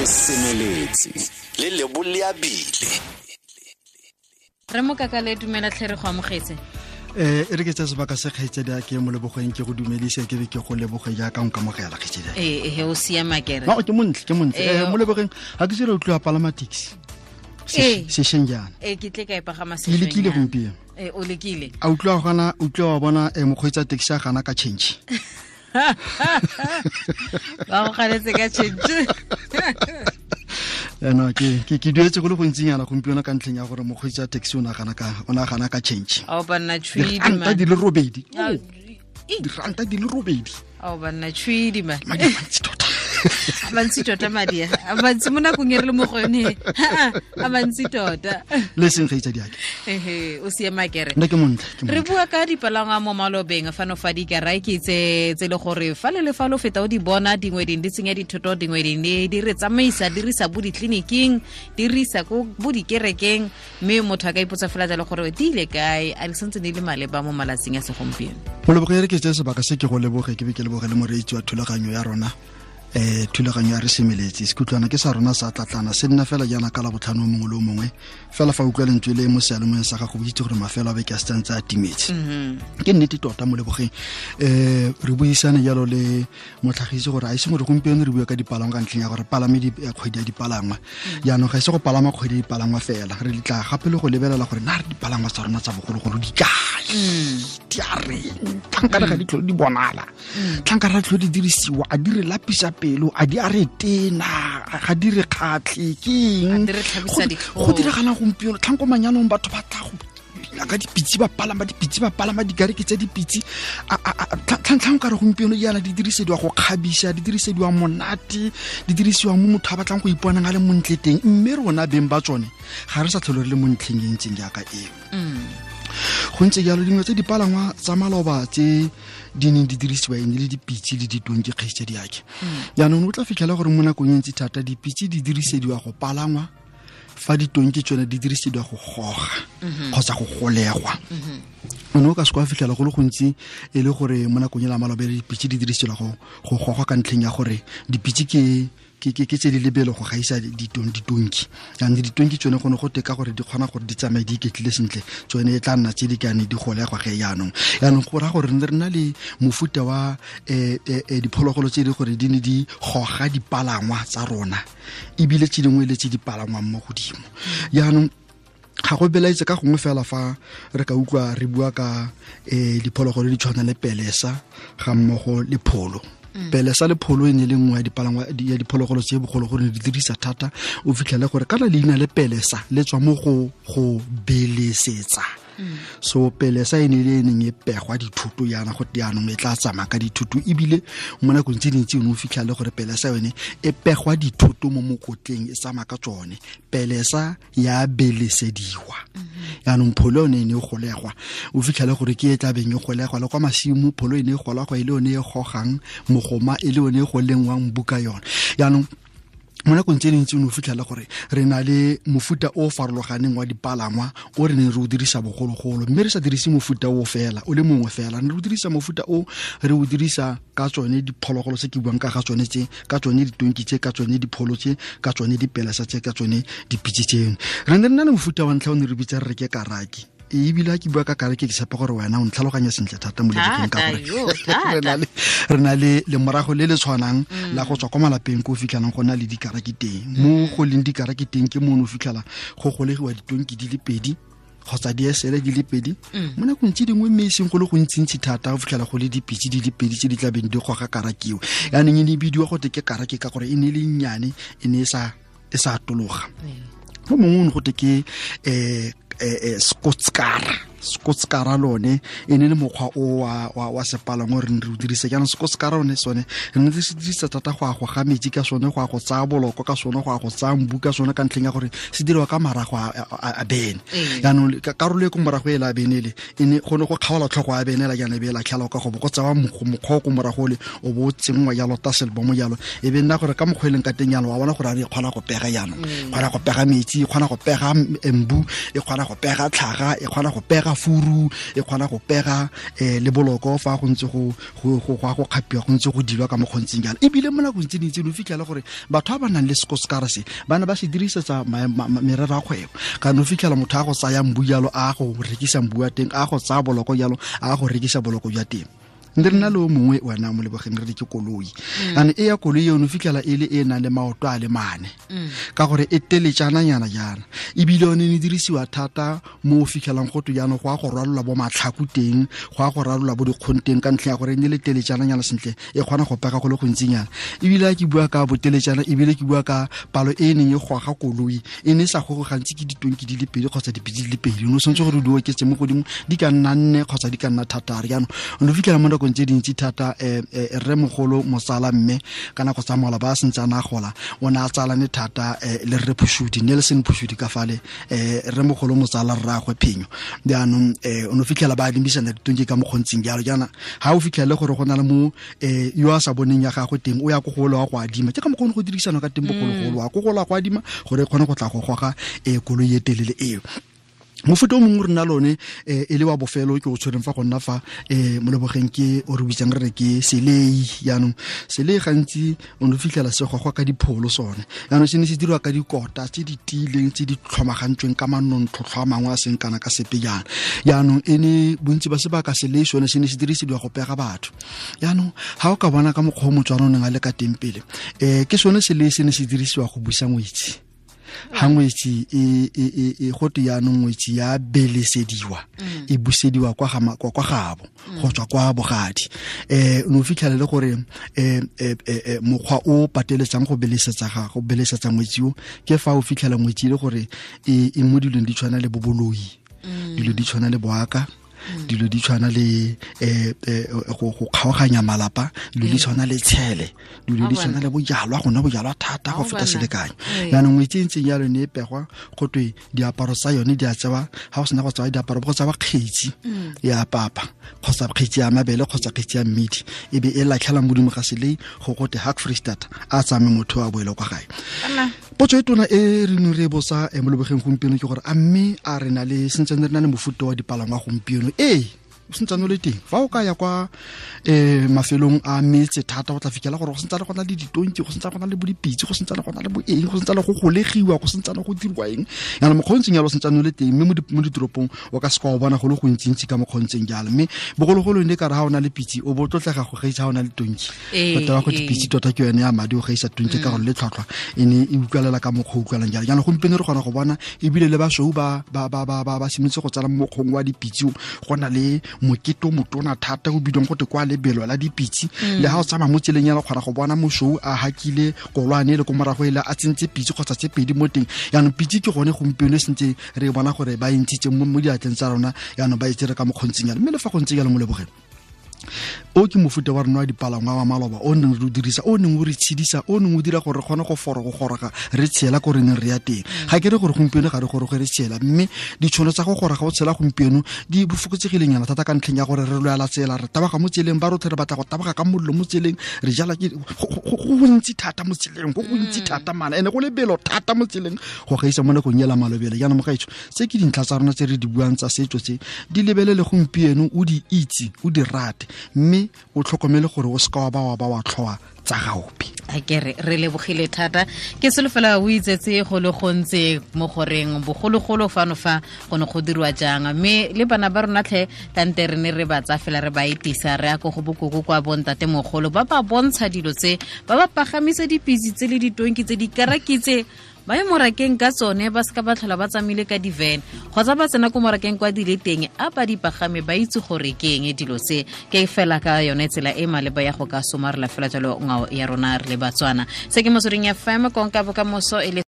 Re semeletse le leboleabile. Re mokakale dumela tlhe re go amogetse. E re ke tsa sebaka se kgaitsedi a ke mo lebogeng ke go dumedise ke be ke go leboge jaaka nkamogela kgaitsedi. Ee, o siama kere. No, ke montle, ke montle. Mo lebogeng ga ke tsere o tloa palama taxi. Sešweng jaana. Ee, ke tle ka e pagama sešweng. Ke lekile gompieno. Ee, o lekile. A utlwa gana, utlwa wa bona mokgweetsi wa taxi a gana ka change. Ba go ganetse ka change. No, ke duetse go le gontsinyana gompieno ka ntlheng ya gore mokgweetsi wa taxi o nagana ka change. Ao banna tshwidi man. Diranta di le robedi. Diranta di le robedi. Ao banna tshwidi man. Madi a mantsi tota. A mantsi tota madi a. A mantsi mo nakong e re le mo go yone. A mantsi tota. Le seng kgaitsadi ake. Ehe, o siama kere. Nna ke montle, ke montle. Re bua ka dipalangwa mo malobeng fano fa dikaraki tse le gore fa le le fa lo feta o di bona dingwe ding di tsenya dithoto dingwe ding di re tsamaisa di re isa bo ditleliniking di re isa ko bo dikerekeng mme motho a ka ipotsa fela jalo gore di ile kae a di santse di le maleba mo malatsing a segompieno. Moleboge re ke tse sebaka se ke go leboge ke be ke leboge le moreetsi wa thulaganyo ya rona. Thulaganyo ya re semeletse sekutlwana ke sa rona sa tlatlana se nna fela jaana ka la botlhano mongwe le mongwe fela fa utlwa lentswe le mo sealemoyeng sa gago bo itse gore mafelo a beke a setsantse a timetse. Ke nnete tota mo lebogeng. Re buisane jalo le motlhagisi gore a ise gore gompieno re bua ka dipalangwa ka ntlheng ya gore palame kgwedi ya dipalangwa. Jaanong ga ise go palama kgwedi ya dipalangwa fela re tla gape le go lebelela gore na re dipalangwa tsa rona tsa bogologolo di kae. Di a reng tlhankana ga di tlhole di bonala. Tlhankana ga di tlhole di dirisiwa a di re lapisa pelo a di a re tena ga di re kgatlhe ke eng go diragalang gompieno tlhanko manyanong batho ba tla go ka dipitse ba palama dipitse ba palama dikareke tsa dipitse tlhantlhang ka re gompieno jaana di dirisediwa go kgabisa di dirisediwa monate di dirisiwa mo motho a batlang go iponang a le montle teng mme rona beng ba tsone ga re sa tlhole re le mo ntlheng e ntseng jaaka eo. Go ntse jalo dingwe tse dipalangwa tsa maloba tse di neng di dirisiwa e ne le dipitse le ditonki kgaitsedi ake. Jaanong o tla fitlhela gore mo nakong e ntsi thata dipitse di dirisediwa go palangwa fa ditonki tsone di dirisediwa go goga kgotsa go golegwa. O ne o ka se kwa fitlhela go le gontsi e le gore mo nakong e la maloba dipitse di dirisediwa go gogwa ka ntlheng ya gore dipitse ke tse di lebelo go gaisa ditonki. Jaanong ditonki tsone go ne go teka gore di kgona gore di tsamaye di iketlile sentle tsone e tla nna tse di kane di golegwa ge jaanong. Jaanong go raya gore re na le mofuta wa diphologolo tse di gore di ne di goga dipalangwa tsa rona ebile tse dingwe le tse di palangwang mo godimo. Jaanong ga go belaetse ka gongwe fela fa re ka utlwa re bua ka diphologolo di tshwana le pelesa ga mmogo le pholo. Pelesa le pholo e ne le nngwe ya dipalangwa ya diphologolo tse bogologolo di dirisa thata o fitlhele gore kana leina le pelesa le tswa mo go belesetsa. So pelesa e ne le e neng e pegwa dithuto yana go jaanong e tla tsamaya ka dithuto ebile mo nakong tse dintsi o ne o fitlhele gore pelesa yone e pegwa dithuto mo mokotleng e tsamaya ka tsone. Pelesa ya belesediwa. Jaanong pholo yone e ne e golegwa o fitlhele gore ke e tla beng e golegwa le kwa masimo pholo e ne e golegwa e le yone e gogang mogoma e le yone e go lengwang buka yone. Jaanong mo nakong tse dintsi o ne o fitlhela gore re na le mofuta o farologaneng wa dipalangwa o re neng re o dirisa bogologolo mme re sa dirise mofuta o fela o le mongwe fela re o dirisa mofuta o re o dirisa ka tsone diphologolo tse ke buang ka ga tsone tse ka tsone ditonki tse ka tsone dipholo tse ka tsone dipelesa tse ka tsone dipitse tseno. Re ne re na le mofuta wa ntlha o ne re bitsa re re ke karaki. Ebile ke bua ka karaki ke tshepa gore wena o ntlhaloganya sentle thata mo lebokeng ka gore re na le lemorago le le tshwanang la go tswa kwa malapeng ko o fitlhelang go na le dikaraki teng. Mo go leng dikaraki teng ke mo o fitlhela go golegiwa ditonki di le pedi kgotsa diesele di le pedi. Mo nakong tse dingwe mme e seng go le gontsintsi thata go fitlhela go le dipitse di le pedi tse di tlabeng di goga karakiwe. Jaanong e ne e bidiwa gote ke karaki ka gore e ne e le nnyane e ne e sa atologa. Mo mongwe o ne gote ke Skotskara lone e ne le mokgwa o wa sepalangwa re ne re o dirisa. Jaanong skotskara one sone re ne re se dirisa thata go ya go ga metsi ka sone go ya go tsaya boloko ka sone go ya go tsaya mbu ka sone ka ntlheng ya gore se diriwa ka marago a bene. Jaanong karolo e ko morago e la bene le e ne go ne go kgaola tlhogo ya bene la jaana e be e latlhela ka go bo go tsewa mokgwa o ko morago le o bo o tsenngwa jalo taselbomo jalo e be nna gore ka mokgwa e leng ka teng jalo wa bona gore a re e kgona go pega jaanong kgona go pega metsi e kgona go pega mbu e kgona go pega tlhaga e kgona go pega pega furu, e kgona go pega le boloko fa go ntse go go kgapiwa, go ntse go dilwa ka mokgontseng jalo. Ebile mo nakong tse dintsi o fitlhela gore batho ba ba nang le sekosekara se ba ne ba se dirisetsa merero ya kgwebo. Kana o fitlhela motho a go tsaya mbu jalo, a go rekisa mbu wa teng, a go tsaya boloko jalo, a go rekisa boloko jwa teng. Nre nna le o mongwe wena mo lebogeng re ke koloi. Ane e ya koloi eno fitlhela e le e nang le maoto a le mane, ka gore e teletjananyana jaana. Ebile yone ne dirisiwa thata mo o fitlhelang go twe jaanong go a go rwalelwa bo matlhaku teng, go a go rwalelwa bo dikgong teng, ka ntlha ya gore e ne le teletjananyana sentle, e kgona go pega go le gontsinyana. Ebile a ke bua ka boteletjana, ebile ke bua ka palo e neng e goga koloi, e ne e sa goge gantsi ke ditonki di le pedi kgotsa dipitse di le pedi. O ne o tshwanetse gore di oketse mo godimo, di ka nna 4 kgotsa di ka nna 6. Jaanong o ne o fitlhela mo nakong tse dintsi thata rremogolo motsala mme ka nako tsa mola ba sentse a na gola, o ne a tsalane thata le rre Phushudi, Nelson Phushudi ka fale, rremogolo motsala rraagwe Phenyo. Jaanong o ne o fitlhela ba adimisana ditonki ka mokgontseng jalo. Jaana ha o fitlhele gore go na le mo yo a sa boneng ya gagwe teng, o ya ko go wa go adima, ke ka mokgwa o ne go dirisana ka teng bogologolo, wa ko go la go adima gore e kgone go tla go goga koloi e telele eo. Mofuta o mongwe re na lone e le wa bofelo ke o tshwereng fa go nna fa mo lebogeng, ke o re bitsang re re ke selei. Jaanong selei gantsi o ne o fitlhela se gogwa ka dipholo sone. Jaanong se ne se dirwa ka dikota tse di tiileng, tse di tlhomagantsweng ka manontlhotlho a mangwe a seng kana ka sepe jaana. Jaanong e ne bontsi ba sebaka selei sone se ne se dirisediwa go pega batho. Jaanong ha o ka bona ka mokgwa o Motswana o neng a le ka teng pele, ke sone selei se ne se dirisiwa go busa ngwetsi. Ha ngwetsi e go te jaanong ngwetsi ya belesediwa, e busediwa kwa kwa gabo, go tswa kwa bogadi. O fitlhela le gore mokgwa o pateletsang go belesetsa ga go belesetsa ngwetsi o, ke fa o fitlhela ngwetsi le gore e mo dilong di tshwana le boboloi, dilo di tshwana le boaka, dilo di tshwana le go kgaoganya malapa, dilo di tshwana le tshele, dilo di tshwana le bojalwa, go nwa bojalwa thata go feta selekanyo. Jaanong ngwetsi e ntseng jalo ne e pegwa, go twe diaparo tsa yone di a tsewa, ha go sena go tsewa diaparo go tsewa kgetsi ya papa kgotsa kgetsi ya mabele kgotsa kgetsi ya mmidi, e be e latlhela modimo ga selei go gote Hak Freestata a tsame motho a boele kwa gae. Potso e tona e re neng re e botsa mo lebogeng gompieno ke gore a mme a re na le sentsane re na le mofuta wa dipalangwa gompieno? Ee, o sentsane o le teng. Fa o ka ya kwa mafelong a metse thata, o tla fitlhela gore go sentsane go na le ditonki, go sentsane go na le bo dipitse, go sentsane go na le bo eng, go sentsane go golegiwa, go sentsane go dirwa eng. Jaanong mokgwa o ntseng jalo o sentsane o le teng, mme mo ditoropong o ka seka wa bona go le gontsi-ntsi ka mokgwa o ntseng jalo. Mme bogologolo ne ka re ha o na le pitse o bo tlotlega go gaisa ha o na le tonki. Tota go pitse tota ke yone ya madi o gaisa tonki ka gore le tlhwatlhwa e ne e utlwalela ka mokgwa o utlwalang jalo. Jaanong gompieno re kgona go bona ebile le basweu ba simolotse go tsala mo mokgweng wa dipitse, go na le mokete o motona thata o bidiwang go te kwa lebelo la dipitse. Le ha o tsamaya mo tseleng ya kgona go bona mosweu a hakile kolwane le ko morago ele a tsentse pitse kgotsa tse pedi mo teng. Jaanong pitse ke gone gompieno e sentse re bona gore ba e ntshitse mo diatleng tsa rona, jaanong ba e tsere ka mokgontseng jalo. Mme le fa go ntse jalo mo lebogeng, o ke mofuta wa rona wa dipalangwa wa maloba o neng re o dirisa, o neng o re tshedisa, o neng o dira gore re kgone go goroga re tshela ko re neng re ya teng. Ga ke re gore gompieno ga re goroge re tshela, mme ditšhono tsa go goroga o tshela gompieno di fokotsegileng thata ka ntlheng ya gore re lwela tsela, re taboga mo tseleng, ba rotlhe re batla go taboga ka mollo mo tseleng, re jala ke go gontsi thata mo tseleng, go gontsi thata mana, ene go lebelo thata mo tseleng go gaisa mo nakong ela malobele. Jaanong mogaetsho, tse ke dintlha tsa rona tse re di buang tsa setso tse, di lebelele gompieno, o di itse, o di rate, mme o tlhokomele gore o seka wa ba wa tlhoa tsa gaope. A ke re lebogile thata. Ke solofela o itsetse go le gontsi mo goreng bogologolo fano fa go ne go dirwa jang, mme le bana ba rona tlhe tante re ne re ba tsa fela re ba etisa re ya ko go bokoko kwa bontate mogolo, ba ba bontsha dilo tse, ba ba pagamisa dipitse tse le ditonki tse dikaraki tse, ba ye morakeng ka tsone, ba seka ba tlhola ba tsamaile ka di-van kgotsa ba tsena ko morakeng kwa di le teng, a ba di pagame ba itse gore ke eng dilo tse. Ke fela ka yone tsela e maleba ya go ka somarela fela jalo ngwao ya rona re le Batswana. Se ke Motsweding FM, konka bokamoso e le